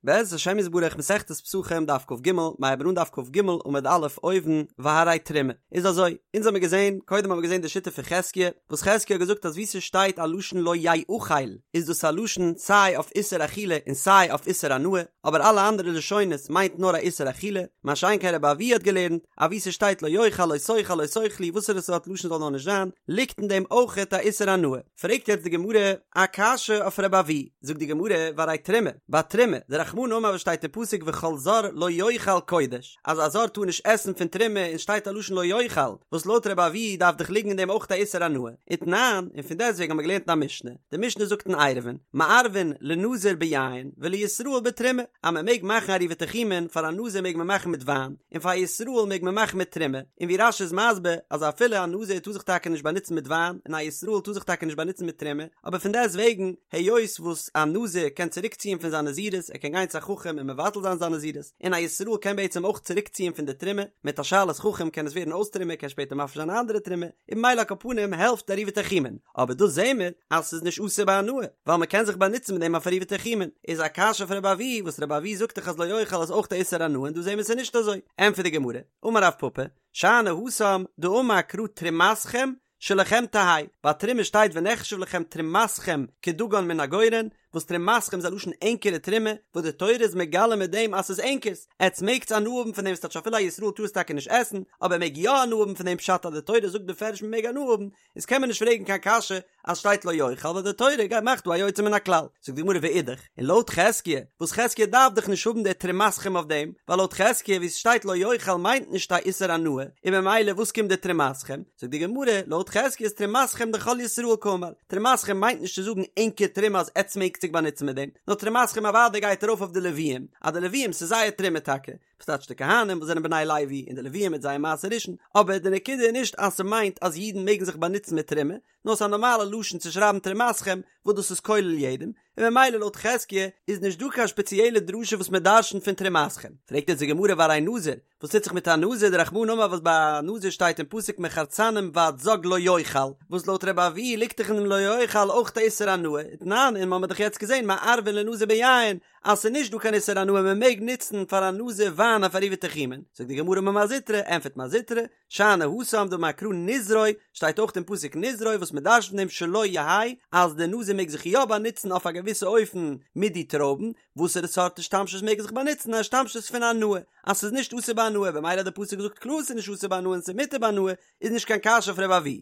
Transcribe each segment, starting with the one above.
בעזרת השם יתברך מסכת פסחים דף כג, מ'הייבן אן דף כג עמוד א' אויבן, והרי תרומה. איז אזוי, אונז האמיר געזען, קודם האמיר געזען די שיטה פון חזקיה, וואס חזקיה האט געזאגט אז וואו ס'שטייט א לשון לא יאכל איז דאס א לשון סיי אויף איסור אכילה און סיי אויף איסור הנאה, אבער אלע אנדערע לשונות מיינט נאר א איסור אכילה, מה שאין כן רבי אבהו האט געלערנט אז וואו ס'שטייט לא יאכל לא תאכל לא תאכלו וואסערע סארט לשון זאל נאר נישט זיין, ליגט אין דעם אויכעט א איסור הנאה. פרעגט יעצט די גמרא א קשיא אויף רבי אבהו, זאגט די גמרא, והרי תרומה, ביי תרומה, דרחמנא אמר וואס שטייט אין פסוק וכל זר לא יאכל קודש, אז א זר טאר נישט עסן פון תרומה און שטייט א לשון לא יאכל, וואס לויט רבי אבהו דארף דאך ליגן אין דעם אויך א איסור הנאה, ותנן, און פון דעסטוועגן האבן מיר געלערנט אין א משנה, די משנה זאגט אין עירובין, מערבין לנזיר ביין ולישראל בתרומה, אז מען מעג מאכן עירובי תחומין, פאר א נזיר מעג מען מאכן מיט וויין, און פאר א ישראל מעג מען מאכן מיט תרומה, און ווי רש"י איז מסביר אז אפילו א נזיר טאר זיך טאקע נישט באנוצן מיט וויין און א ישראל טאר זיך טאקע נישט באנוצן מיט תרומה, אבער פון דעסט וועגן היות וואס א נזיר קען צוריק ציען פון זיין נזירות ער קען גיין צו א חכם און מבטל זיין זיין נזירות, און א ישראל קען בעצם אויך צוריק ציען פון די תרומה, מיט א שאלת חכם קען עס ווערן אויס תרומה קען שפעטער מפריש זיין א אנדערע תרומה, און ממילא על כל פנים העלפט עירובי תחומין, אבער דא זעהן מיר אז ס'איז נישט אסור בהנאה, ווייל מ'קען זיך באנוצן מיט דעם אויף עירובי תחומין, איז א קשיא אויף רבי אבהו וואס רבי אבהו זאגט דאך אז לא יאכל איז אויך א איסור הנאה און דא זעהן מיר ס'איז נישט אזוי, ענטפערט די גמרא, אמר רב פפא, שאני התם דאמר קרא תרומתכם שלכם תהא, ביי תרומה שטייט ונחשב לכם תרומתכם כדגן מן הגורן, וואס תרומתכם איז א לשון ענקערע תרומה, וואס די תורה איז מגלה מיט דעם אז ס'איז ענקערס, עטס מעגטס הנאה האבן פון דעם, ס'טייטש אפילו א ישראל טאר עס טאקע נישט עסן, אבער ער מעג יא הנאה האבן פון דעם פשט אז די תורה זאגט בפירוש מ'מעג הנאה האבן, איז קען מען נישט פרעגן קיין קשיא אז שטייט לא יאכל ווייל די תורה גייט מאכט דא א יוצא מן הכלל, זאגט די גמרא ואידך, און לויט חזקיה, וואס חזקיה דארף דאך נישט האבן די תרומתכם אויף דעם, ווייל לויט חזקיה ווי ס'שטייט לא יאכל מיינט נישט א איסור הנאה, און ממילא וואס קומט די תרומתכם, זאגט די גמרא, לויט חזקיה איז תרומתכם דכל ישראל קאמר, תרומתכם מיינט נישט צו זאגן ענקער תרומה אז עטס מעגט זיך באנוצן מיט דעם, נאר תרומתכם אוודאי גייט ארויף אויף די לוויים, אז די לוויים ס'איז זייער תרומה טאקע, וואס טייטש די כהנים וואס זענען בני לוי און די לוויים מיט זייער מעשר ראשון, אבער די נקודה איז נישט אז ס'מיינט אז אידן מעגן זיך באנוצן מיט תרומה, נאר ס'איז א נארמאלע לשון צו שרייבן תרומתכם וואס דאס איז כולל יעדעם, און ממילא לויט חזקיה איז נישט דא קיין שפעציעלע דרשה וואס מען דרשנ'ט פון תרומתכם. פרעגט יעצט די גמרא והרי נזיר, וואס טוט זיך מיט א נזיר דרחמנא אמר וואס ביי א נזיר שטייט אין פסוק מחרצנים ועד זג לא יאכל, וואס לויט רבי אבהו ליגט דאך אין דעם לא יאכל אויך א איסור הנאה, ותנן און מ'האמיר דאך יעצט געזען מערבין לנזיר ביין אז ס'איז נישט דא קיין איסור הנאה מען מעג נוצן פאר א נזיר וויין אויף עירובי תחומין, זאגט די גמרא אמר מר זוטרא, ענפערט מר זוטרא, שאני התם דאמר קרא נזרו, שטייט אויך אין פסוק נזרו וואס מען דרש'נט פון דעם שלו יהא אז די נזיר מעג זיך יא באנוצן אויף א געוויסע אופן מיט די טרויבן, וואסערע סארט השתמשות מעג ער זיך באנוצן א השתמשות פון הנאה, אז ס'איז נישט אסור בהנאה במילא האט די פסוק געזאגט קלאר ס'איז נישט אסור בהנאה און ס'איז מותר בהנאה איז נישט קיין קשיא אויף ר' אבהו.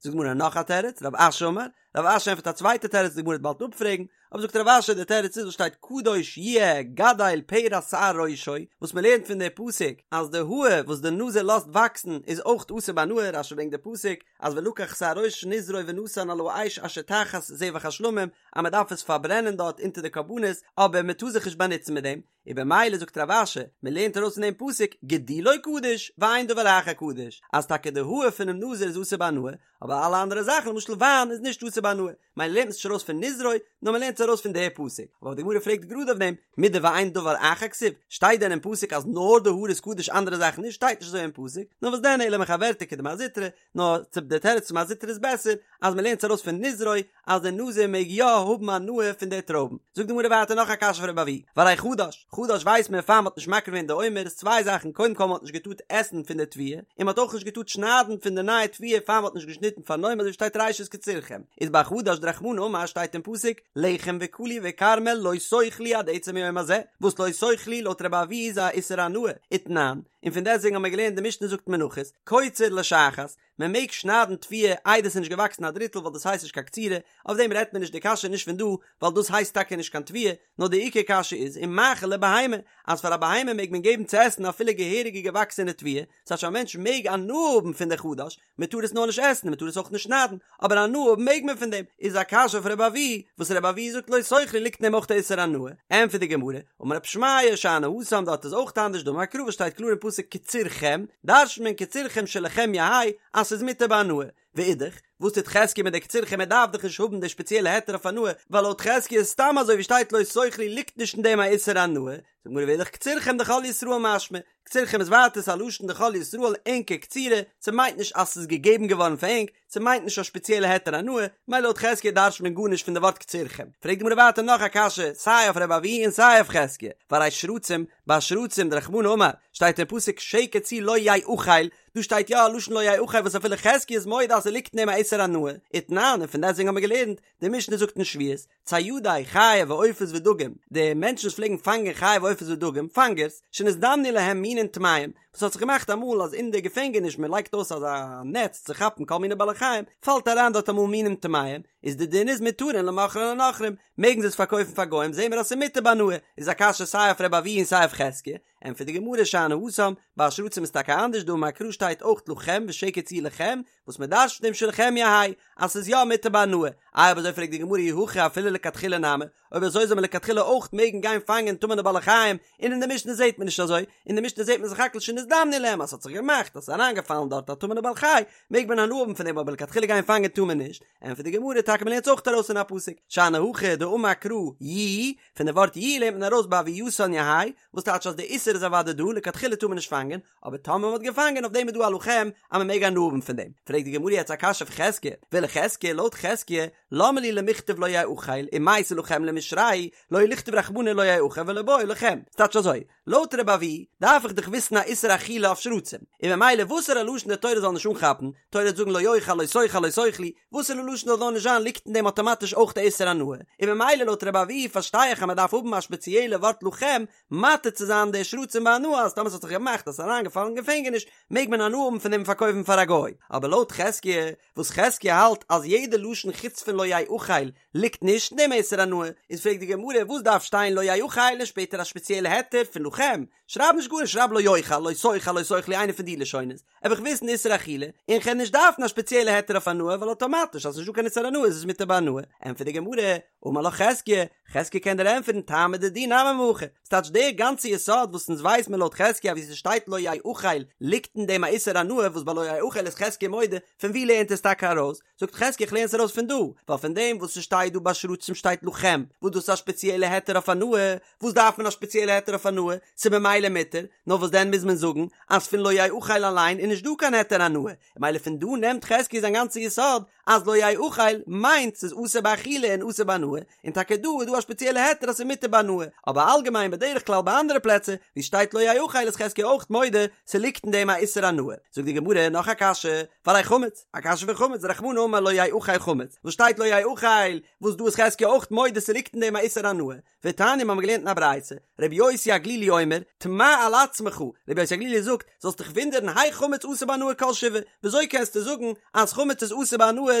זאגט די גמרא נאך א תירוץ, רב אשי אמר, רב אשי ענטפערט א צווייטע תירוץ די גמרא וועט באלד אפפרעגן, אבער זאגט רב אשי די תירוץ איז וואס שטייט קדוש יהיה גדל פרע שער ראשו, וואס מען לערנט פון די פסוק אז די האר וואס די נזיר לאזט וואקסן איז אויך אסור בהנאה, רשי ברענגט די פסוק אז ולקח שער ראש נזרו ונתן על האש אשר תחת זבח השלמים אז מען דארף עס פארברענען דארט אונטער די קרבנות אבער מען טאר זיך נישט באנוצן מיט דעם, און במילא זאגט רב אשי, מען לערנט ארויס פון דעם פסוק גידולו קדוש ואין דבר אחר קדוש, אז טאקע די האר פונעם נזיר איז אסור בהנאה, אבער אלע אנדערע זאכן למשל וויין איז נישט אסור בהנאה, מילא לערנט מען עס נישט ארויס פון נזרו, נאר מען לערנט עס ארויס פון די פסוק, אבער די גמרא פרעגט גראד אויף דעם, מידי ואין דבר אחר כתיב, שטייט דען אין פסוק אז נאר די האר איז קדוש אנדערע זאכן נישט, שטייט נישט אזוי אין פסוק, נאר וואס דען אלא מחוורתא כדמר זוטרא, נאר צו די תירוץ פון מר זוטרא איז בעסער, אז מען לערנט עס ארויס פון נזרו, אז דער נזיר מעג יא האבן הנאה פון די טרויבן. זאגט די גמרא ווייטער נאך א קשיא פון רבי אבהו, והרי חדש, חדש ווייסט מען פאר מען האט נישט מקריב געווען די עומר איז צוויי זאכן קודם כל מען האט נישט געטארט עסן פון די תבואה, און מען האט אויך נישט געטארט שניידן פון די נייע תבואה פאר מען האט נישט געשניטן פארן עומר אזוי ווי שטייט ראשית קצירכם, איז ביי חדש דרחמנא אמר שטייט אין פסוק לחם וקלי וכרמל לא תאכלו עד עצם היום הזה, וואס לא תאכלו לויט רבי אבהו איז א איסור הנאה, ותנן, און פון דעסטוועגן האבן מיר געלערנט די משנה זאגט מנחות, קוצר לשחת, מען מעג שניידן תבואה איידער ס'איז נישט געוואקסן א דריטל ווייל דאס הייסט נישט קיין קצירה, אויף דעם רעדט מען נישט די קשיא איז נישט פון דא ווייל דאס הייסט טאקע נישט קיין תבואה, נאר די עיקר קשיא איז ומאכיל לבהמה אז פאר א בהמה מעג מען געבן צו עסן אפילו געהעריגע געוואקסענע תבואה, ס'טייטש א מענטש מעג הנאה האבן פון די חדש, מען טאר עס נאר נישט עסן און מען טאר עס אויך נישט שניידן, אבער הנאה האבן מעג מען פון דעם, איז א קשיא אויף רבי אבהו, וואס רבי אבהו זאגט לא תאכלו ליגט אין דעם אויך די איסור הנאה, ענטפערט די גמרא, אמר רב שמעיה שאני התם דארט איז אויך אנדערש דאמר קרא וואס שטייט קלאר אין פסוק קצירכם, דרש'נט מען קצירכם שלכם יהא אז ס'איז מותר בהנאה, ואידך, וואס טוט חזקיה מיט די קצירכם ער דארף דאך נישט האבן די שפעציעלע היתר אויף הנאה, ווייל לויט חזקיה איז סתם אזוי ווי שטייט לא תאכלו ליגט נישט אין דעם א איסור הנאה, זאגט די גמרא ואידך קצירכם דכל ישראל משמע, קצירכם איז ווייטער ס'א לשון דכל ישראל ענקער קצירה, ס'מיינט נישט אז ס'איז געגעבן געווארן פאר ענק, ס'מיינט נישט א שפעציעלע היתר הנאה, מילא לויט חזקיה דרש'ט מען גארנישט פון די ווארט קצירכם. פרעגט די גמרא ווייטער נאך א קשיא, סיי אויף רבי אבהו און סיי אויף חזקיה, והרי שרצים, ביי שרצים דרחמנא אמר, שטייט אין פסוק שקץ הוא לא יאכל, דא שטייט יא א לשון לא יאכל וואס אפילו חזקיה איז מודה אז ס'ליגט אין דעם א איסור הנאה, ותנן, און פון דעסטוועגן האבן מיר געלערנט, די משנה זאגט אין שביעית, ציידי חיה ועופות ודגים, די מענטשן וואס פלעגן פאנגען חיה ועופות ודגים, פאנגערס, שנזדמנו להם מינין טמאים, וואס האט זיך געמאכט אמאל אז אין די געפענגעניש מען לייגט אויס אזא נעץ צו כאפן כל מיני בעלי חיים, פאלט אריין דארט אמאל מינים טמאים, איז די דין איז מותרין למוכרן לנכרים, מעגן זיי עס פארקויפן פאר גוים, זעהן מיר אז ס'איז מותר בהנאה, איז א קשיא סיי אויף רבי אבהו און סיי אויף חזקיה, ענטפערט די גמרא שאני התם, ביי שרצים איז טאקע אנדערש דאמר קרא שטייט אויך לכם ושקץ הוא לכם, וואס מען דרש'ט פון דעם שלכם יהא אז ס'איז יא מותר בהנאה, איי אויב אזוי פרעגט די גמרא אי הכי אפילו לכתחילה נמי, אויב אזוי זאל מען לכתחילה אויך מעגן גיין פאנגען טמא'נע בעלי חיים, און אין די משנה זעט מען נישט אזוי, אין די משנה זעט מען סך הכל שנזדמנו להם אז ס'האט זיך געמאכט אז ס'איז אריינגעפאלן דארט א טמא'נע בעל חי, מעג מען הנאה האבן פון דעם אבער לכתחילה גיין פאנגען טאר מען נישט, ענטפערט די גמרא טאקע מען לערנט עס אויך ארויס אין א פסוק, שאני הכא דאמר קרא יהיו, פון די ווארט יהיו לערנט מען ארויס בהוייתן יהא, וואס טייטש אז די איסור איז אוודאי דא, לכתחילה טאר מען נישט פאנגען, אבער טאמער מען האט געפאנגען אויף דעם איז דא א לכם אז מען מעג הנאה האבן פון דעם, פרעגט די גמרא יעצט א קשיא אויף חזקיה, ולחזקיה, לויט חזקיה, למה לי למכתב לא יאכל, ומייתי לכם למישרייה, לא לכתוב רחמנא לא יאכל ולא בעי לכם, ס'טייטש אזוי, לויט רבי אבהו דארף איך דאך וויסן א איסור אכילה אויף שרצים, און ממילא וואסערע לשון די תורה זאל נישט אנכאפן, תורה וועט זאגן לא יאכל לא תאכל לא תאכלו, וואסערע לשון זאל נאר נישט זיין ליגט אין דעם אטאמאטיש אויך די איסור הנאה, און ממילא לויט רבי אבהו פארשטיי איך אז מען דארף האבן א שפעציעלע ווארט לכם מתיר צו זיין די שרצים בהנאה אז טאמער ס'האט זיך געמאכט אז ס'איז אריינגעפאלן אין געפענגעניש מעג מען הנאה האבן פון דעם פארקויפן פאר א גוי, אבער לויט חזקיה וואס חזקיה האלט אז יעדע לשון חוץ פון לא יאכל ליגט נישט אין דעם איסור הנאה, איז פרעגט די גמרא וואס דארף שטיין לא יאכל און שפעטער א שפעציעלע היתר פון לכם, שרייב נישט גארנישט שרייב לא יאכל לא תאכל לא תאכלו איינע פון די לשונות, וועל איך וויסן איסור אכילה, און כ'וועל נישט דארפן א שפעציעלע היתר אויף הנאה ווייל אטאמאטיש אז ס'נישט דא קיין איסור הנאה איז עס מותר בהנאה, ענטפערט די גמרא, אמר לך חזקיה, חזקיה קען דיר ענטפערן טעמא דידי נמי מהכא, ס'טייטש דער גאנצע יסוד וואס אונז ווייס מיר לויט חזקיה ווי ס'שטייט לא יאכל ליגט אין דעם א איסור הנאה וואס ביי לא יאכל איז חזקיה מודה, פון ווי לערנט עס טאקע ארויס? זאגט חזקיה איך לערן עס ארויס פון דא, ווייל פון דעם וואס ס'שטייט דא ביי שרצים שטייט לכם, וואס דאס איז א שפעציעלע היתר אויף הנאה, וואס דארף מען א שפעציעלע היתר אויף הנאה? ס'איז ממילא מותר, נאר וואס דען מוז מען זאגן אז פון לא יאכל אליין איז נישט דא קיין היתר הנאה, ממילא פון דא נעמט חזקיה זיין גאנצע יסוד אז לא יאכל מיינט ס'איז אסור באכילה און אסור בהנאה, און טאקע דא איז דא א שפעציעלע היתר אז ס'איז מותר בהנאה, אבער אלגעמיין בדרך כלל ביי אנדערע פלעצער ווי ס'שטייט לא יאכל איז חזקיה אויך מודה ס'ליגט אין דעם א איסור הנאה. זאגט די גמרא נאך א קשיא, והרי חמץ, א קשיא פון חמץ, דרחמנא אמר לא יאכל חמץ, וואס שטייט לא יאכל, וואס דא איז חזקיה אויך מודה ס'ליגט אין דעם א איסור הנאה, ותניא מיר האבן געלערנט אין א ברייתא, רבי יוסי הגלילי אומר, תמה על עצמך, רבי יוסי הגלילי זאגט, זאלסט דיך וואונדערן היאך חמץ אסור בהנאה כל שבעה, וויאזוי קענסטו זאגן אז חמץ איז אסור בהנאה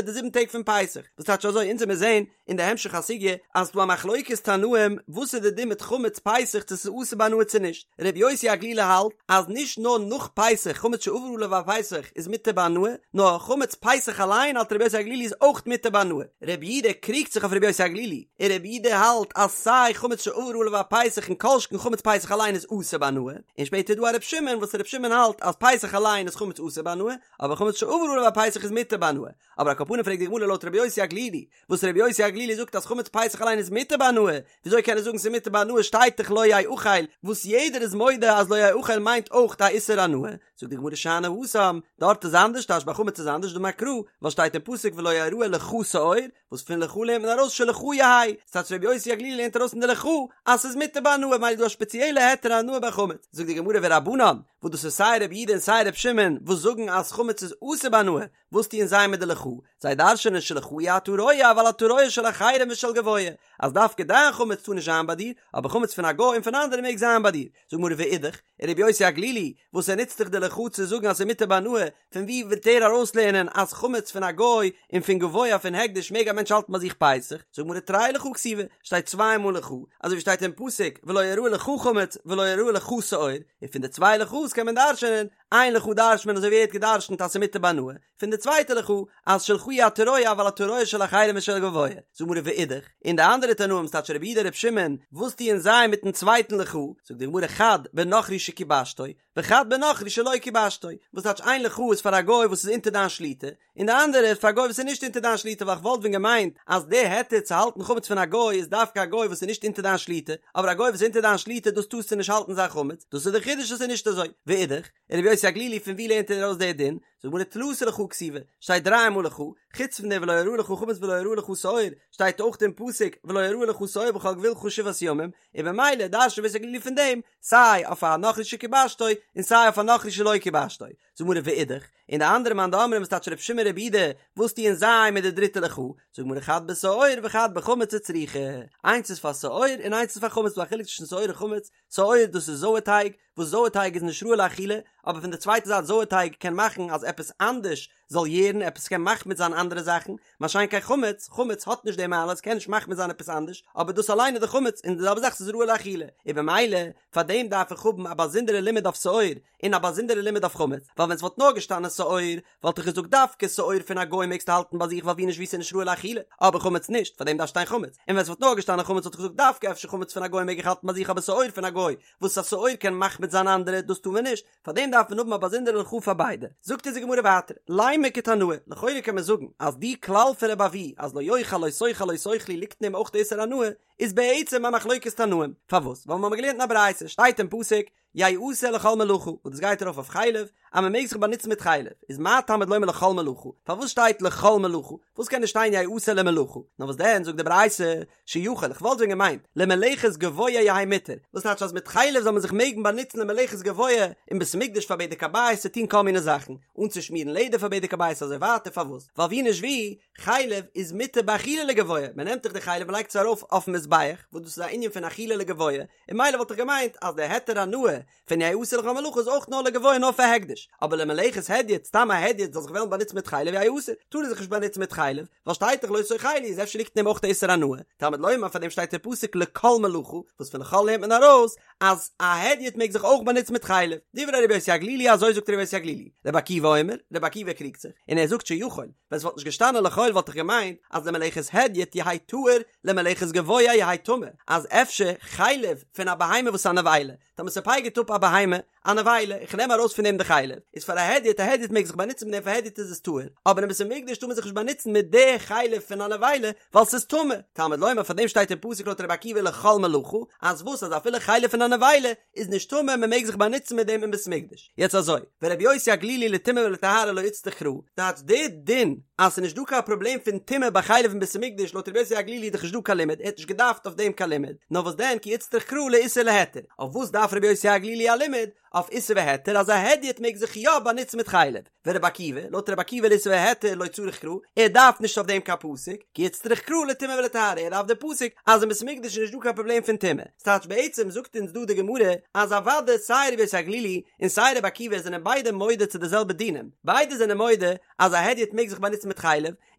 די זיבן טעג פון פסח, וואס טייטש אזוי, אונז וועמיר זעהן אין די המשך הסוגיא אז ס'דא א מחלוקת תנאים וואס איז די דין מיט חמץ פסח צו ס'איז אסור בהנאה צו נישט, רבי יוסי הגלילי האלט אז נישט נאר נאך פסח חמץ שעבר עליו הפסח איז מותר בהנאה, נאר חמץ פסח אליין האלט רבי יוסי הגלילי איז אויך מותר בהנאה. רבי יהודה קריגט זיך אויף רבי יוסי הגלילי, און רבי יהודה האלט אז סיי חמץ שעבר עליו הפסח און כל שכן חמץ פסח אליין איז אסור בהנאה, און שפעטער איז דא א רבי שמעון וואס רבי שמעון האלט אז פסח אליין איז חמץ אסור בהנאה, אבער חמץ שעבר עליו הפסח איז מותר בהנאה. אבער על כל פנים פרעגט די גמרא לויט רבי יוסי הגלילי, וואס רבי יוסי הגלילי זאגט אז חמץ פסח אליין איז מותר בהנאה, וויאזוי קען ער זאגן ס'איז מותר בהנאה שטייט דאך לא יאכל, וואס יעדער איז מודה אז לא יאכל מיינט אויך א איסור הנאה, זאגט די גמרא שאני התם, דארט איז אנדערש טייטש ביי חמץ איז אנדערש דאמר קרא, ווייל שטייט אין פסוק ולא יראה לך שאור, וואס פון לך לערנט מען ארויס שלך יהא, ס'טייטש רבי יוסי הגלילי לערנט ארויס פון די לך אז ס'איז מותר בהנאה ממילא איז דא א שפעציעלע היתר הנאה ביי חמץ, זאגט די גמרא ורבנן, וואס דאס איז סיי רבי יהודה און סיי רבי שמעון וואס זאגן אז חמץ איז אסור בהנאה, וואס טוען זיי מיט די לך? זיי דרש'נען שלך אי אתה רואה אבל אתה רואה של אחרים ושל גבוה, אז דווקא דיין חמץ טאר נישט זיין ביי דיר, אבער חמץ פון א גוי און פון אנדערע מעג זיין ביי דיר. זאגט גמרא ואידך, און רבי יוסי הגלילי, וואס ער נוצט דאך די לך צו זאגן אז ס'איז מותר בהנאה, פון וואו וועט ער ארויסלערנען אז חמץ פון א גוי און פון גבוה פון הקדש מעג א מענטש האלטן ביי זיך פסח? זאגט גמרא תרי לך כתיבי, שטייט צוויי מאל לך, אזוי ווי שטייט אין פסוק ולא יראה לך חמץ ולא יראה לך שאור, און פון די צוויי לך'ס קען מען דרש'נען. איין לך דרש'נט מען אזוי ווי ער האט געדרש'נט אז ס'מותר בהנאה, פון די צווייטע לך אז שלך אי אתה רואה אבל אתה רואה של אחרים ושל גבוה, זאגט די גמרא ואידך, און די אנדערע תנאים ס'טייטש רבי יהודה רבי שמעון, וואס טוען זיי מיטן צווייטן לך, זאגט די גמרא חד בנכרי שכיבשתו, וחד בנכרי שלא כיבשתו, וואס טייטש איין לך איז פאר א גוי וואס איז אונטער דיין שליטה, און די אנדערע איז פאר א גוי וואס איז נישט אונטער דיין שליטה ווייל כ'וואלט ווען געמיינט אז די היתר צו האלטן חמץ פון א גוי איז דווקא א גוי וואס איז נישט אונטער דיין שליטה, אבער א גוי וואס איז אונטער דיין שליטה דאס טארסטו נישט האלטן זיין חמץ, דאס איז די חידוש אז ס'איז נישט אזוי. ואידך, רבי יוסי הגלילי פון ווי לערנט ער ארויס די דין? זאגט די גמרא תלתא לך כתיבי, שטייט דריי מאל לך, חוץ פון די ולא יראה לך חמץ ולא יראה לך שאור, שטייט אויך אין פסוק ולא יראה לך שאור בכל גבולך שבעת ימים, און במילא דרש'נט רבי יוסי הגלילי פון דעם סיי אויף א נכרי שכיבשתו און סיי אויף א נכרי שלא כיבשתו. זאגט די גמרא ואידך, און די אנדערע מאן דאמרים וואס טייטש רבי שמעון רבי יהודה, וואס טוען זיי מיט די דריטע לך? זאגט די גמרא חד בשאור וחד בחמץ וצריכא, איינס איז פאר שאור און איינס איז פאר חמץ, ס'דא א חילוק צווישן שאור און חמץ, שאור דאס איז זויער טייג, וואס זויער טייג איז נישט ראוי לאכילה, אבער פון די צווייטע זייט זויער טייג קען מאכן אז עפעס אנדערש זאל יערן, עפעס קען מחמיץ זיין אנדערע זאכן, מה שאין כן חמץ, חמץ האט נישט די מעלה, עס קען נישט מחמיץ זיין עפעס אנדערש, אבער דאס אליין איז די חמץ, און די זעלבע זאך ס'איז ראוי לאכילה, און במילא פאר דעם דארף איך האבן א באזונדערע לימוד אויף שאור, און א באזונדערע לימוד אויף חמץ, ווייל ווען ס'וואלט נאר געשטאנען שאור, וואלט איך געזאגט דווקא שאור פון א גוי מעגסטו האלטן ביי זיך ווייל ווי נישט ווי ס'איז נישט ראוי לאכילה, אבער חמץ נישט, פאר דעם דארף שטיין חמץ, און ווען ס'וואלט נאר געשטאנען חמץ וואלט איך געזאגט דווקא אפשר חמץ פון א גוי מעג איך האלטן ביי זיך אבער שאור פון א גוי, וואס א שאור קען מחמיץ זיין אנדערע, דאס טאר מען נישט, פאר דעם דארף מען האבן א באזונדערע לך פאר ביידע. זאגט אונז די גמרא ווייטער, לימא כתנאי, לכאורה קען מען זאגן אז די כלל פון רבי אבהו אז לא יאכל לא תאכל לא תאכלו ליגט אין דעם אויך די איסור הנאה, איז בעצם א מחלוקת תנאים, פארוואס? ווייל מיר האבן געלערנט אין א ברייתא, שטייט אין פסוק, יעשה לכל מלאכה, וואס דאס גייט ארויף אויף חלב, אז מען מעג זיך באנוצן מיט חלב, איז מה תלמוד לומר לכל מלאכה, פארוואס שטייט לכל מלאכה, פארוואס קען נישט שטיין יעשה למלאכה, נאר וואס דען זאגט די ברייתא, שיכול, איך וואלט ווען געמיינט, למלאכת גבוה יהא מותר, וואס טייטש אז מיט חלב זאל מען זיך מעגן באנוצן למלאכת גבוה אין בית המקדש פאר בדק הבית צו טון כל מיני זאכן, אנצושמירן לעדער פאר בדק הבית אזוי ווייטער, פארוואס? ווייל ווי נישט ווי, חלב איז מותר באכילה לגבוה, מען נעמט דאך די חלב מען לייגט עס ארויף אויפן מזבח, וואס דאס איז א ענין פון אכילה לגבוה, און ממילא וואלט איך געמיינט אז די היתר הנאה פון יעשה לכל מלאכה איז אויך נאר לגבוה נאר פאר הקדש, אבער למלאכת הדיוט, סתם א הדיוט זאל זיך וועלן באנוצן מיט חלב יהא אסור, טאר ער זיך נישט באנוצן מיט חלב, ווייל שטייט דאך לא תאכלו איז אפשר ליגט אין דעם אויך די איסור הנאה, תלמוד לומר פאר דעם שטייט דער פסוק לכל מלאכה, וואס פון לכל לערנט מען ארויס אז א הדיוט מעג זיך אויך באנוצן מיט חלב, דברי רבי יוסי הגלילי אזוי זאגט רבי יוסי הגלילי, רבי עקיבא אומר, רבי עקיבא קריגט זיך, און ער זאגט שיכול, ווען ס'וואלט נישט געשטאנען לכל וואלט איך געמיינט אז למלאכת הדיוט יהא טהור למלאכת גבוה יהא טמא, אז אפשר חלב פון א בהמה וואס איז א נבילה, טאמער ס'פייגערט אפ א בהמה א נבילה, איך נעם ארויס פון דעם די חלב, איז פאר א הדיוט, א הדיוט מעג זיך באנוצן מיט דעם פאר הדיוט איז עס טהור, אבער אין בית המקדש טאר מען זיך נישט באנוצן מיט די חלב פון א נבילה ווייל ס'איז טמא, תלמוד לומר פאר דעם שטייט אין פסוק לויט רבי עקיבא לכל מלאכה, אז וואס אז אפילו חלב פון א נבילה איז נישט טמא מען מעג זיך באנוצן מיט דעם אין בית המקדש. יעצט אזוי, ורבי יוסי הגלילי לטומאה ולטהרה לא איצטריך קרא, טייטש די דין אז ס'איז נישט דא קיין פראבלעם פון טומאה ביי חלב אין בית המקדש לויט רבי יוסי הגלילי איז דאך נישט דא קיין לימוד, ער האט נישט געדארפט אויף דעם קיין לימוד, נאר וואס דען כי איצטריך קרא לאיסור ולהיתר, אויף וואס דארף רבי יוסי הגלילי א לימוד? אויף איסור והיתר אז א הדיוט מעג זיך יא באנוצן מיט חלב, ורבי עקיבא, לויט רבי עקיבא לאיסור והיתר לא צריך קרא, ער דארף נישט אויף דעם קיין פסוק, כי איצטריך קרא לטומאה ולטהרה, ער דארף די פסוק אז אין בית המקדש איז נישט דא קיין פראבלעם פון טומאה. ס'טייטש בעצם זאגט אונז דא די גמרא אז אוודאי סיי רבי יוסי הגלילי און סיי רבי עקיבא זענען ביידע מודה צו די זעלבע דינים, ביידע זענען מודה אז א הדיוט מעג זיך באנוצן מיט חלב,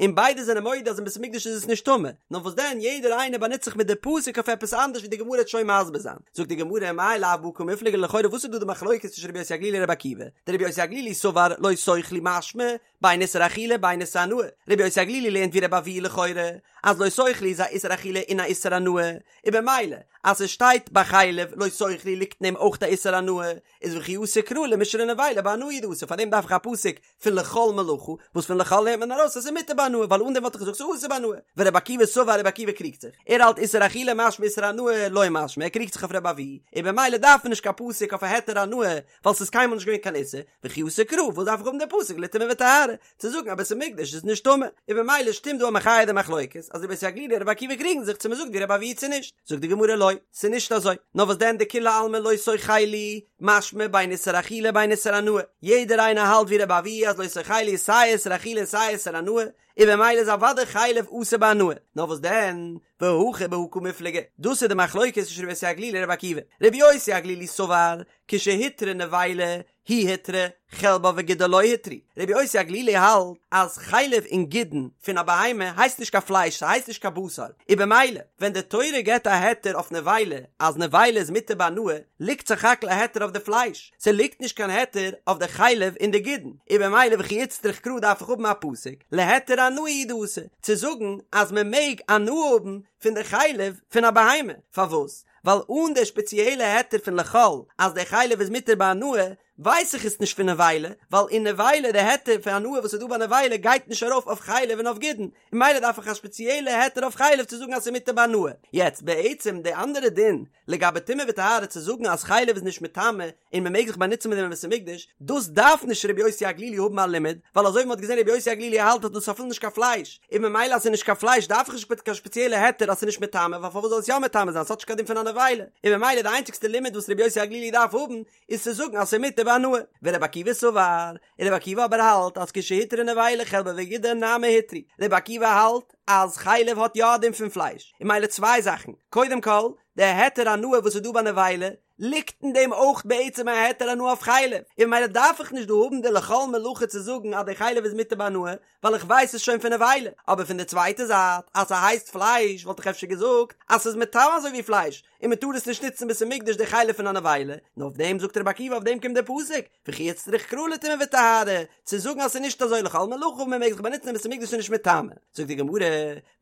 און ביידע זענען מודה אז אין בית המקדש איז עס נישט טמא, נאר וואס דען יעדער איינער באנוצט זיך מיט די פסוק אויף עפעס אנדערש ווי די גמרא וועט שוין מסביר זיין. זאגט די גמרא מאי לאו בהא קמיפלגי לכאורה וואס איז דא די מחלוקת צווישן רבי יוסי הגלילי און רבי עקיבא? דרבי יוסי הגלילי סבר לא תאכלו משמע בין איסור אכילה בין איסור הנאה, רבי יוסי הגלילי לערנט ווי רבי אבהו לכאורה אז לא תאכלו איז א איסור אכילה און א איסור הנאה, און במילא אז ס'שטייט ביי חלב לא תאכלו ליגט אין דעם אויך א איסור הנאה, איז וכי אתא קרא למישרי נבילה בהנאה הוא דאתא פאר דעם דארף איך א פסוק פון לכל מלאכה, וואס פון לכל לערנט מען ארויס אז ס'איז מותר בהנאה, ווייל אן דעם וואלט איך געזאגט ס'איז אסור בהנאה. ורבי עקיבא סבר רבי עקיבא קריגט זיך, ער האלט איסור אכילה משמע איסור הנאה לא משמע, ער קריגט זיך אויף רבי אבהו, און במילא דארף מען נישט קיין פסוק אויף א היתר הנאה, ווייל ס'איז קיינמאל נישט געווען קיין איסור, וכי אתא קרא, וואס דארף איך האבן די פסוק לטומאה וטהרה, צו זאגן אז בית המקדש איז נישט טמא, און במילא שטימט דא א מחיה די מחלוקת, אז רבי יוסי הגלילי און רבי עקיבא קריגן זיך צו מ'זאגט ווי רבי אבהו צו נישט, זאגט די גמרא לא, ס'איז נישט אזוי, נאר וואס דען דכולי עלמא לא תאכלו, משמע בין איסור אכילה בין איסור הנאה, יעדער איינער האלט ווי רבי אבהו אז לא תאכלו איז סיי איסור אכילה און סיי איסור הנאה, און במילא איז אוודאי חלב אסור בהנאה, נאר וואס דען, והכא בהא קמיפלגי, דאס איז די מחלוקת צווישן רבי יוסי הגלילי און רבי עקיבא, רבי יוסי הגלילי סבר, כשהותרה נבילה. היא הותרה, חלבה וגידה לא הותרו. רבי יוסי הגלילי האלט אז חלב און גידין פון א בהמה הייסט נישט קיין פלייש, ס'הייסט נישט קיין בשר, און במילא ווען די תורה געבט א היתר אויף נבילה אז נבילה איז מותר בהנאה, ליגט סך הכל א היתר אויף די פלייש, ס'ליגט נישט קיין היתר אויף די חלב און די גידין, און במילא וכי איצטריך קרא דארף איך האבן א פסוק להיתר הנאה הוא דאתא צו זאגן אז מ'מעג הנאה האבן פון די חלב פון א בהמה, פארוואס? ווייל אן די שפעציעלע היתר פון לכל אז די חלב איז מותר בהנאה, ווייס איך עס נישט פון נבילה, ווייל אין נבילה די היתר פון הנאה וואס איז דא ביי נבילה גייט נישט ארויף אויף חלב און אויף גידין, און ממילא דארף איך א שפעציעלע היתר אויף חלב צו זאגן אז ס'איז מותר בהנאה. יעצט בעצם די אנדערע דין לגבי טומאה וטהרה צו זאגן אז חלב איז נישט מטמא און מ'מעג זיך באנוצן מיט דעם אין בית המקדש, דאס דארף נישט רבי יוסי הגלילי האבן א לימוד, ווייל אזוי ווי מ'האט געזען רבי יוסי הגלילי האלט אז דאס איז אפילו נישט קיין פלייש, און ממילא אז ס'איז נישט קיין פלייש דארף איך נישט קיין שפעציעלע היתר אז ס'איז נישט מטמא ווייל פארוואס זאל עס יא מטמא זיין ס'האט נישט קיין דין פון א נבילה, און ממילא די איינציגסטע לימוד וואס רבי יוסי הגלילי דארף האבן איז צו זאגן אז ס'איז מותר בהנאה. ורבי עקיבא סבר, און רבי עקיבא אבער האלט אז כשהותרה נבילה חלבה וגידה נמי הותרו, רבי עקיבא האלט אז חלב האט יא א דין פון פלייש, און ממילא צוויי זאכן, קודם כל, די היתר הנאה וואס איז דא ביי נבילה, ליגט אין דעם אויך בעצם א היתר הנאה אויף חלב, און ממילא דארף איך נישט דא האבן די לכל מלאכה צו זאגן אז די חלב איז מותר בהנאה, ווייל איך ווייס עס שוין פון נבילה, אבער פון די צווייטע זייט אז ס'הייסט פלייש וואלט איך אפשר געזאגט אז ס'איז מטמא אזוי ווי פלייש, און מ'טאר עס נישט נוצן בית המקדש די חלב פון א נבילה, נאר אויף דעם זאגט רבי עקיבא אויף דעם קומט דער פסוק, וכי איצטריך קרא לטומאה וטהרה, צו זאגן אז ס'איז נישט אזוי לכל מלאכה און מ'מעג זיך באנוצן אין בית המקדש איז נישט מטמא, זאגט די גמרא,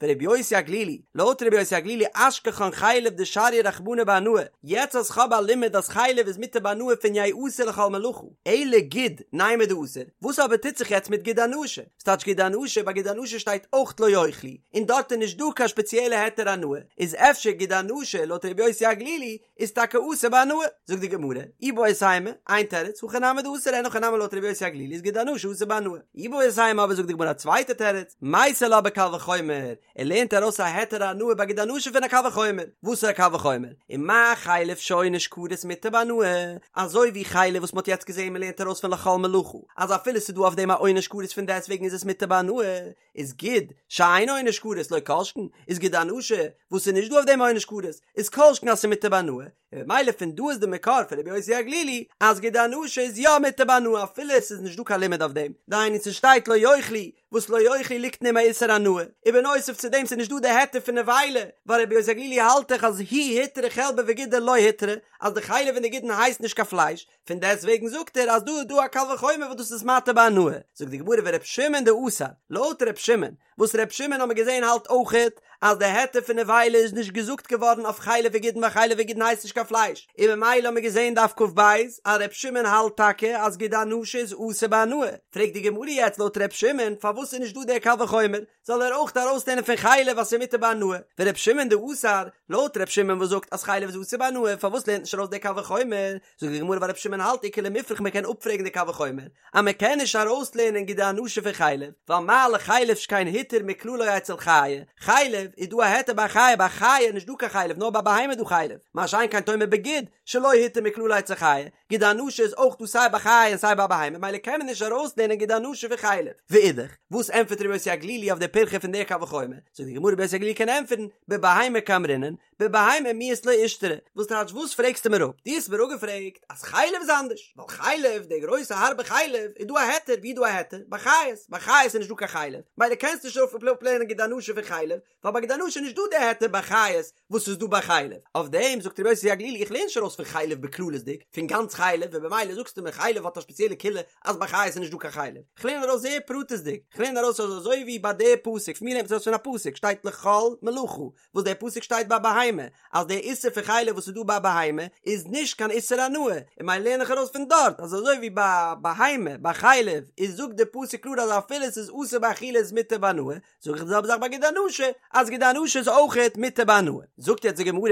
ורבי יוסי הגלילי, לויט רבי יוסי הגלילי אשכחן חלב דשרייה רחמנא בהנאה, יעצט אז כ'האב א לימוד אז חלב איז מותר בהנאה פון יעשה לכל מלאכה, אלא גיד נימא דאסור, וואס אבער טוט זיך יעצט מיט גיד הנשה? ס'טייטש גיד הנשה, ביי גיד הנשה שטייט אויך לא יאכלו, און דארט איז נישט דא קיין שפעציעלע היתר הנאה, איז אפשר גיד הנשה לויט רבי יוסי הגלילי איז טאקע אסור בהנאה? זאגט די גמרא, איבעית אימא, איין תירוץ, הכי נמי דאסור, אין הכי נמי לויט רבי יוסי הגלילי איז גיד הנשה אסור בהנאה. איבעית אימא אבער זאגט די גמרא א צווייטע תירוץ, מייתי לה בקל וחומר, ער לערנט ארויס א היתר הנאה ביי גיד הנשה פון א קל וחומר, וואס איז א קל וחומר? ומה חלב שעונש כרת מותר בהנאה, אזוי ווי חלב וואס מ'האט יעצט געזען מ'לערנט ארויס פון לכל מלאכה, אז אפילו ס'איז דא אויף דעם א עונש כרת פון דעסטוועגן איז עס מותר בהנאה, איז גיד שאין עונש כרת לא כל שכן, איז גיד הנשה וואס ס'איז נישט דא אויף דעם א עונש כרת, איז כל שכן אז ס'איז מותר בהנאה, און ממילא פון דא איז די מקור פון רבי יוסי הגלילי אז גיד הנשה איז יא מותר בהנאה אפילו עס איז נישט דא קיין לימוד אויף דעם, דהיינו ס'שטייט לא יאכלו וואס לא יאכלו ליגט אין אים א איסור הנאה, און בנוסף צו דעם ס'איז נישט דא די היתר פון נבילה, ווייל רבי יוסי הגלילי האלט דאך אז היא הותרה חלבה וגידה לא הותרה, אז די חלב און די גידין הייסט נישט קיין פלייש, פון דעסט וועגן זאגט ער אז דא איז דא א קל וחומר וואס דאס איז מתיר בהנאה, זאגט די גמרא ור' שמעון דאסר, לויט ר' שמעון, וואס ר' שמעון האמיר געזען האלט אויכעט אז די היתר פון נבילה איז נישט געזאגט געווארן אויף חלב וגידין ווייל חלב וגידין הייסט נישט קיין פלייש, און ממילא האמיר געזען דף כ"ב אז ר' שמעון האלט טאקע אז גיד הנשה איז אסור בהנאה, פרעגט די גמרא יעצט לויט ר' שמעון פארוואס איז נישט דא דער קל וחומר, זאל ער אויך ארויסלערנען פון חלב אז ס'איז מותר בהנאה, ור' שמעון דאסר, לויט ר' שמעון וואס זאגט אז חלב איז אסור בהנאה פארוואס לערנט נישט ארויס דער קל וחומר, זאגט די גמרא ווייל ר' שמעון האלט איכא למיפרך מען קען אפפרעגן די קל וחומר אז מען קען נישט ארויסלערנען גיד הנשה פון חלב ווייל מה לחלב שכן הותר מכללו אצל חיה, חלב איז דא א היתר ביי חיה ביי חיה איז נישט דא קיין חלב נאר ביי בהמה איז דא חלב, מה שאין כן תאמר בגיד שלא הותר מכללו אצל חיה, גיד הנשה איז אויך דא סיי ביי חיה און סיי ביי בהמה ממילא קען מען נישט ארויסלערנען גיד הנשה פון חלב. ואידך, וואס ענטפערט רבי יוסי הגלילי אויף די פירכא פון די קל וחומר? זאגט די גמרא רבי יוסי הגלילי קען ענטפערן, בבהמה קאמרינן, בבהמה מיהת לא אישתרי, וואס טייטש וואס פרעגסטו מיר אפ? דו האסט מיר אפגעפרעגט אז חלב איז אנדערש, ווייל חלב, די גרויסע הארבע חלב, איז דא א היתר, ווי איז דא א היתר? ביי חיות, ביי חיות איז נישט דא קיין חלב, ממילא קענסטו נישט אפלערנען גיד הנשה פון חלב, ווייל ביי גיד הנשה איז נישט דא די היתר ביי חיות וואס איז דא ביי חלב, אויף דעם זאגט רבי יוסי הגלילי איך לערן נישט ארויס פון חלב בכללות'דיג, פון גאנץ חלב, און במילא זאגסטו מיר חלב האט א שפעציעלע קולא אז ביי חיות איז נישט דא קיין חלב, איך לערן ארויס זייער פרטית'דיג, איך לערן ארויס אז אזוי ווי ביי די פסוק, פון ווי לערנט מען עס ארויס פון א פסוק, שטייט לכל מלאכה, וואס דער פסוק שטייט ביי בהמה, אז דער איסור פון חלב וואס איז דא ביי בהמה איז נישט קיין איסור הנאה, און ממילא לערן איך ארויס פון דארט אז אזוי ווי ביי בהמה ביי חלב איז זאגט דער פסוק קלאר אז אפילו עס איז אסור באכילה איז מותר בהנאה, זאג איך די זעלבע זאך ביי גיד הנשה, אז גיד הנשה איז אויכעט מותר בהנאה. זאגט יעצט די גמרא,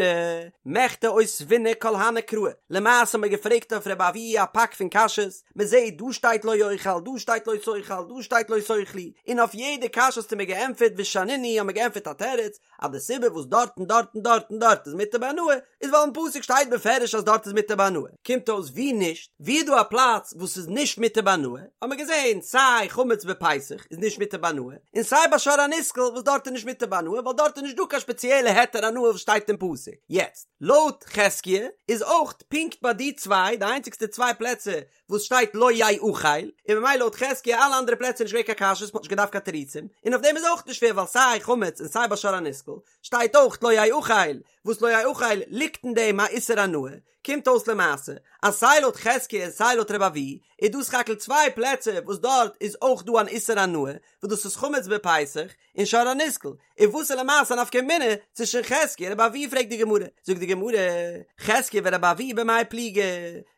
מכדי אותבינהו כל הני קראי, למעשה האט מען געפרעגט אויף רבי אבהו א פאק פון קשיות, מען זעט דא שטייט לא יאכל, דא שטייט לא תאכל, דא שטייט לא תאכלו, און אויף יעדע קשיא האסטו מיר געענטפערט ושנינהו האט מען געענטפערט א תירוץ, אז די סיבה וואס דארט און דארט און דארט און דארט איז מותר בהנאה, איז ווייל אין פסוק שטייט בפירוש אז דארט איז מותר בהנאה. קומט אויס ווי נישט, ווי איז דא א פלאץ וואס איז נישט מותר בהנאה, האט מען געזען סיי חמץ בפסח איז נישט מותר בהנאה, און סיי סיי ביי שור הנסקל וואס דארט איז נישט מותר בהנאה ווייל דארט איז נישט דא קיין שפעציעלע היתר הנאה וואס שטייט אין פסוק. יעצט, לויט חזקיה איז אויך פונקט ביי די צוויי די איינציגסטע צוויי פלעצער וואס שטייט לא יאכל, און ממילא לויט חזקיה אלע אנדערע פלעצער איז נישט געווען קיין קשיות מ'האט נישט געדארפט קיין תירוצים, און אויף דעם איז אויך נישט שווער ווייל סיי חמץ און סיי ביי שור הנסקל שטייט אויך לא יאכל, וואס לא יאכל ליגט אין דעם א איסור הנאה, קומט אויס למעשה אז סיי לויט חזקיה און סיי לויט רבי אבהו איז דא סך הכל צוויי פלעצער וואס דארט איז אויך דא אן איסור הנאה, וואס דאס איז חמץ בפסח און שור הנסקל, און וואס איז למעשה א נפקא מינה צווישן חזקיה און רבי אבהו פרעגט די גמרא, זאגט די גמרא, חזקיה ורבי אבהו במאי פליגי,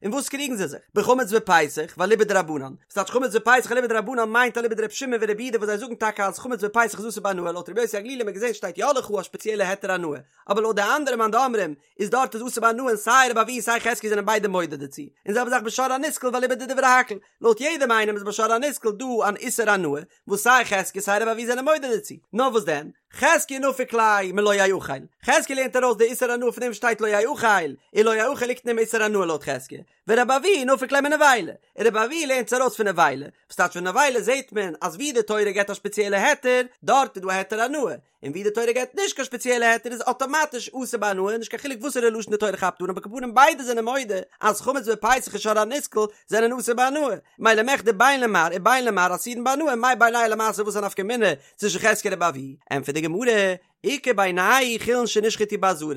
אין וואס קריגן זיי זיך? בחמץ בפסח ואליבא דרבנן, וואס טייטש חמץ בפסח אליבא דרבנן מיינט אליבא דרבי שמעון ורבי יהודה וואס זיי זאגן טאקע אז חמץ בפסח איז אסור בהנאה לויט רבי יוסי הגלילי האט מען געזען שטייט יא לך א שפעציעלע היתר הנאה, אבער לויט די אנדערע מאן דאמרים איז דארט איז אסור בהנאה און סיי רבי אבהו און סיי חזקיה זענען ביידע מודה דערצו, און זעלבע זאך בשור הנסקל ואליבא דדברי הכל, לויט יעדעם איינעם איז בשור הנסקל דא אן איסור הנאה, וואס סיי חזקיה סיי רבי אבהו זענען מודה דערצו, נאר וואס דען, חזקיה נפיק ליה מלא יאכל, חזקיה לערנט ארויס די איסור הנאה פון דעם וואס שטייט לא יאכל, און לא יאכל ליגט אין דעם איסור הנאה לויט חזקיה, ורבי אבהו נפיק ליה מנבילה, און רבי אבהו לערנט עס ארויס פון נבילה, וואס טייטש פון נבילה זעט מען אז ווי די תורה געבט א שפעציעלע היתר, דארט איז דא א היתר הנאה, און ווי די תורה געבט נישט קיין שפעציעלע היתר איז אטאמאטיש אסור בהנאה נישט קיין חילוק וואסערע לשון די תורה כאפט אן אבער על כל פנים ביידע זענען מודה אז חמץ בפסח און שור הנסקל זענען אסור בהנאה מילא מכדי בין למר ובין למר אסורין בהנאה מאי בינייהו למעשה וואס א נפקא מינה צווישן חזקיה און רבי אבהו ענטפערט די גמרא איכא בינייהו חולין שנשחטו בעזרה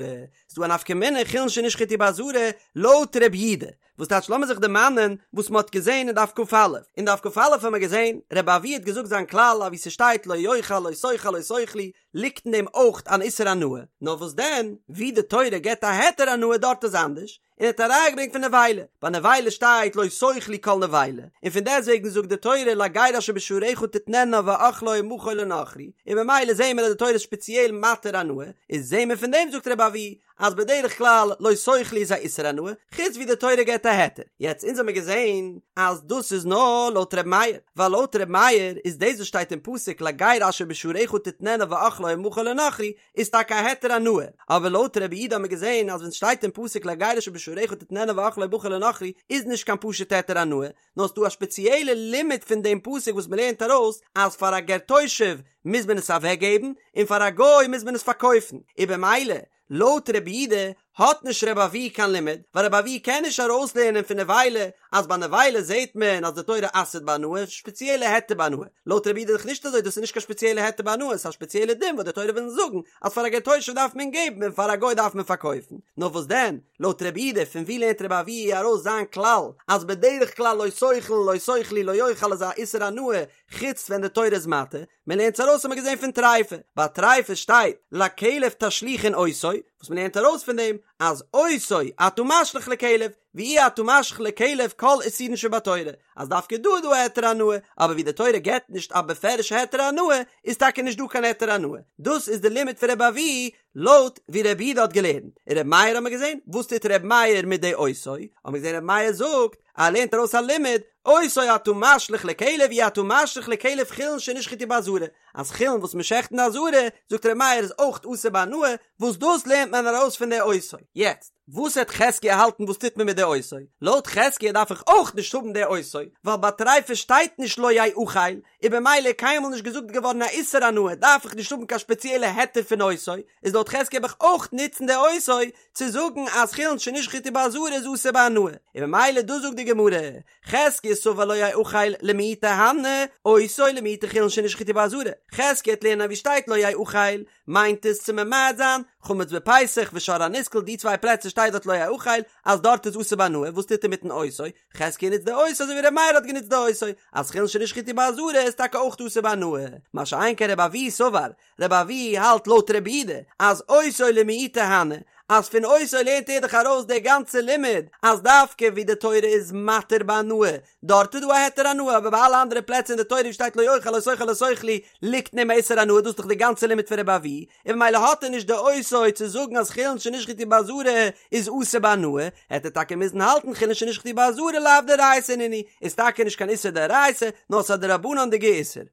ס'דא א נפקא מינה חולין שנשחטו בעזרה לויט רבי יהודה וואס טייטש לאמיר זיך דערמאנען וואס מ'האט געזען אין דף כ"א, אין דף כ"א האבן מיר געזען, רבי אבהו האט געזאגט זיין כלל אז ווי ס'שטייט לא יאכל לא תאכל לא תאכלו ליגט אין דעם אויך אן איסור הנאה, נאר וואס דען ווי די תורה געבט א היתר הנאה דארט איז אנדערש, און ער האט א ראיה געברענגט פון נבילה, ביי נבילה שטייט לא תאכלו כל נבילה, און פון דעסטוועגן זאגט די תורה לגר אשר בשעריך תתננה ואכלה ומכור לנכרי, און ממילא זעהן מיר אז די תורה איז שפעציעל מתיר הנאה, איז זעהן מיר פון דעם זאגט רבי אבהו אז בדרך כלל לא תאכלו איז א איסור הנאה, חוץ ווי די תורה געבט א היתר. יעצט אונז האמיר געזען אז דאס איז נאר לויט ר' מאיר, ווייל לויט ר' מאיר איז דאס וואס שטייט אין פסוק לגר אשר בשעריך תתננה ואכלה ומכור לנכרי איז טאקע א היתר הנאה, אבער לויט רבי יהודה האמיר געזען אז ווען סשטייט אין פסוק לגר אשר בשעריך תתננה ואכלה ומכור לנכרי איז נישט קיין פשוט היתר הנאה, נאר ס'דא א שפעציעלע לימוד פון דעם פסוק וואס מ'לערנט ארויס אז פאר א גר תושב מוז מען עס אוועקגעבן און פאר א גוי מוז מען עס פארקויפן, און במילא לויט רבי יהודה האט נישט רבי אבהו קיין לימוד, ווייל רבי אבהו קען נישט ארויסלערנען פון נבילה אז ביי נבילה זעט מען אז די תורה אסר'ט בהנאה, שפעציעלע היתר בהנאה, לויט רבי יהודה איז דאך נישט אזוי דאס איז נישט קיין שפעציעלע היתר בהנאה ס'איז א שפעציעלע דין וואס די תורה וויל אונז זאגן אז פאר א גר תושב דארף מען געבן און פאר א גוי דארף מען פארקויפן, נאר וואס דען לויט רבי יהודה פון ווי לערנט רבי אבהו ארויס זיין כלל אז בדרך כלל לא תאכל לא תאכלו לא יאכל איז א איסור הנאה חוץ ווען די תורה איז מתיר, מען לערנט עס ארויס האט מען געזען פון טריפה, ביי טריפה שטייט לכלב תשליכון אותו, וואס מען לערנט ארויס פון דעם אז אותו אתה משליך לכלב ואי אתה משליך לכלב כל איסורין שבתורה, אז דווקא דא איז דא א היתר הנאה, אבער ווי די תורה געבט נישט א בפירוש'ע היתר הנאה איז טאקע נישט דא קיין היתר הנאה, דאס איז די לימוד פון רבי אבהו לויט ווי רבי יהודה האט געלערנט, און רבי מאיר האט מען געזען, וואס טוט רבי מאיר מיט די אותו? האט מען געזען רבי מאיר זאגט אז ער לערנט ארויס א לימוד, אותו אתה משליך לכלב אי אתה משליך לכלב חולין שנשחטו בעזרה, אז חולין וואס מען שעכט אין די עזרה, זאגט רבי מאיר איז אויך אסור בהנאה, וואס דאס לערנט מען ארויס פון די אותו. יעצט, וואס העט חזקיה האלטן וואס טוט מען מיט די אותו? לויט חזקיה דארף איך אויך נישט האבן די אותו, ווייל ביי טריפה שטייט נישט לא יאכל, און במילא קיינמאל נישט געזאגט געווארן א איסור הנאה דארף איך נישט האבן קיין שפעציעלע היתר פון אותו, איז לויט חזקיה האב איך אויך נוצן די אותו צו זאגן אז חולין שנשחטו בעזרה איז אסור בהנאה, און במילא דא זאגט די גמרא, חזקיה סבר לא יאכל למעוטי הני, אותו למעוטי חולין שנשחטו בעזרה, חזקיה העט לערנען ווי שטייט לא יאכל מיינט עס צו ממעט זיין חמץ בפסח ושור הנסקל די צוויי פלעצער שטייט דארט לא יאכל אז דארט איז אסור בהנאה וואס טוט ער מיטן אותו? חזקיה נוצט די אותו אזוי ווי ר' מאיר האט גענוצט די אותו, אז חולין שנשחטו בעזרה איז טאקע אויך אסור בהנאה, מה שאין כן רבי אבהו סבר, רבי אבהו האלט לויט רבי יהודה אז אותו למעוטי הני, אז פון אותו לערנט ער דאך ארויס די גאנצע לימוד אז דווקא ווי די תורה איז מתיר בהנאה דארט איז דא א היתר הנאה אבער ביי אלע אנדערע פלעצער אין די תורה ווי שטייט לא יאכל לא תאכל לא תאכלו ליגט אין דעם איסור הנאה דאס איז דאך די גאנצע לימוד פון רבי אבהו און ממילא האט ער נישט די אותו צו זאגן אז חולין שנשחטו בעזרה איז אסור בהנאה, העט ער טאקע מוזן האלטן חולין שנשחטו בעזרה לאו דאורייתא נינהו, איז טאקע נישט קיין איסור דאורייתא, נאר ס'איז א דרבנן'דיגע איסור.